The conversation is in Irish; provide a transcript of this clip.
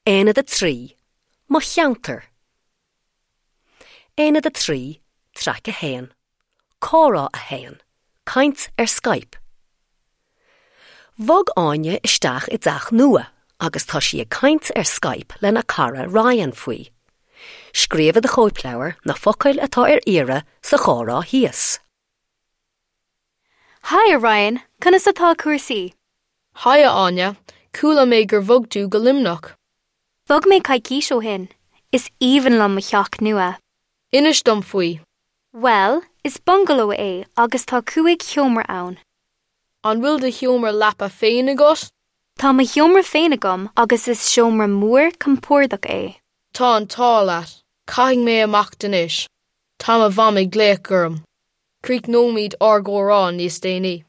Aonad 3, Mo Cheantar. Aonad 3, Traic 1, Comhrá 1, Caint ar Skype. Bhog Áine isteach i dteach nua agus tá sí ag caint ar Skype lena cara Ryan faoi. Scríobh i do chóipleabhar na focail atá ar iarraidh sa chomhrá thíos. Haigh a Ryan, conas atá cúrsaí? Haigh a Áine, chuala mé gur bhog tú go Luimneach. Bhog mé coicís ó shin. Is aoibhinn liom mo theach nua. Inis dom faoi. Bhuel, is bungaló é agus tá cúig sheomra ann. An bhfuil do sheomra leapa féin agat? Tá mo sheomra féin agam agus is seomra mór compordach é. Tá an t-ádh leat. Caithfidh mé imeacht anois. Tá mo mham ag glaoch orm. Críochnóimid ár gcomhrá níos déanaí.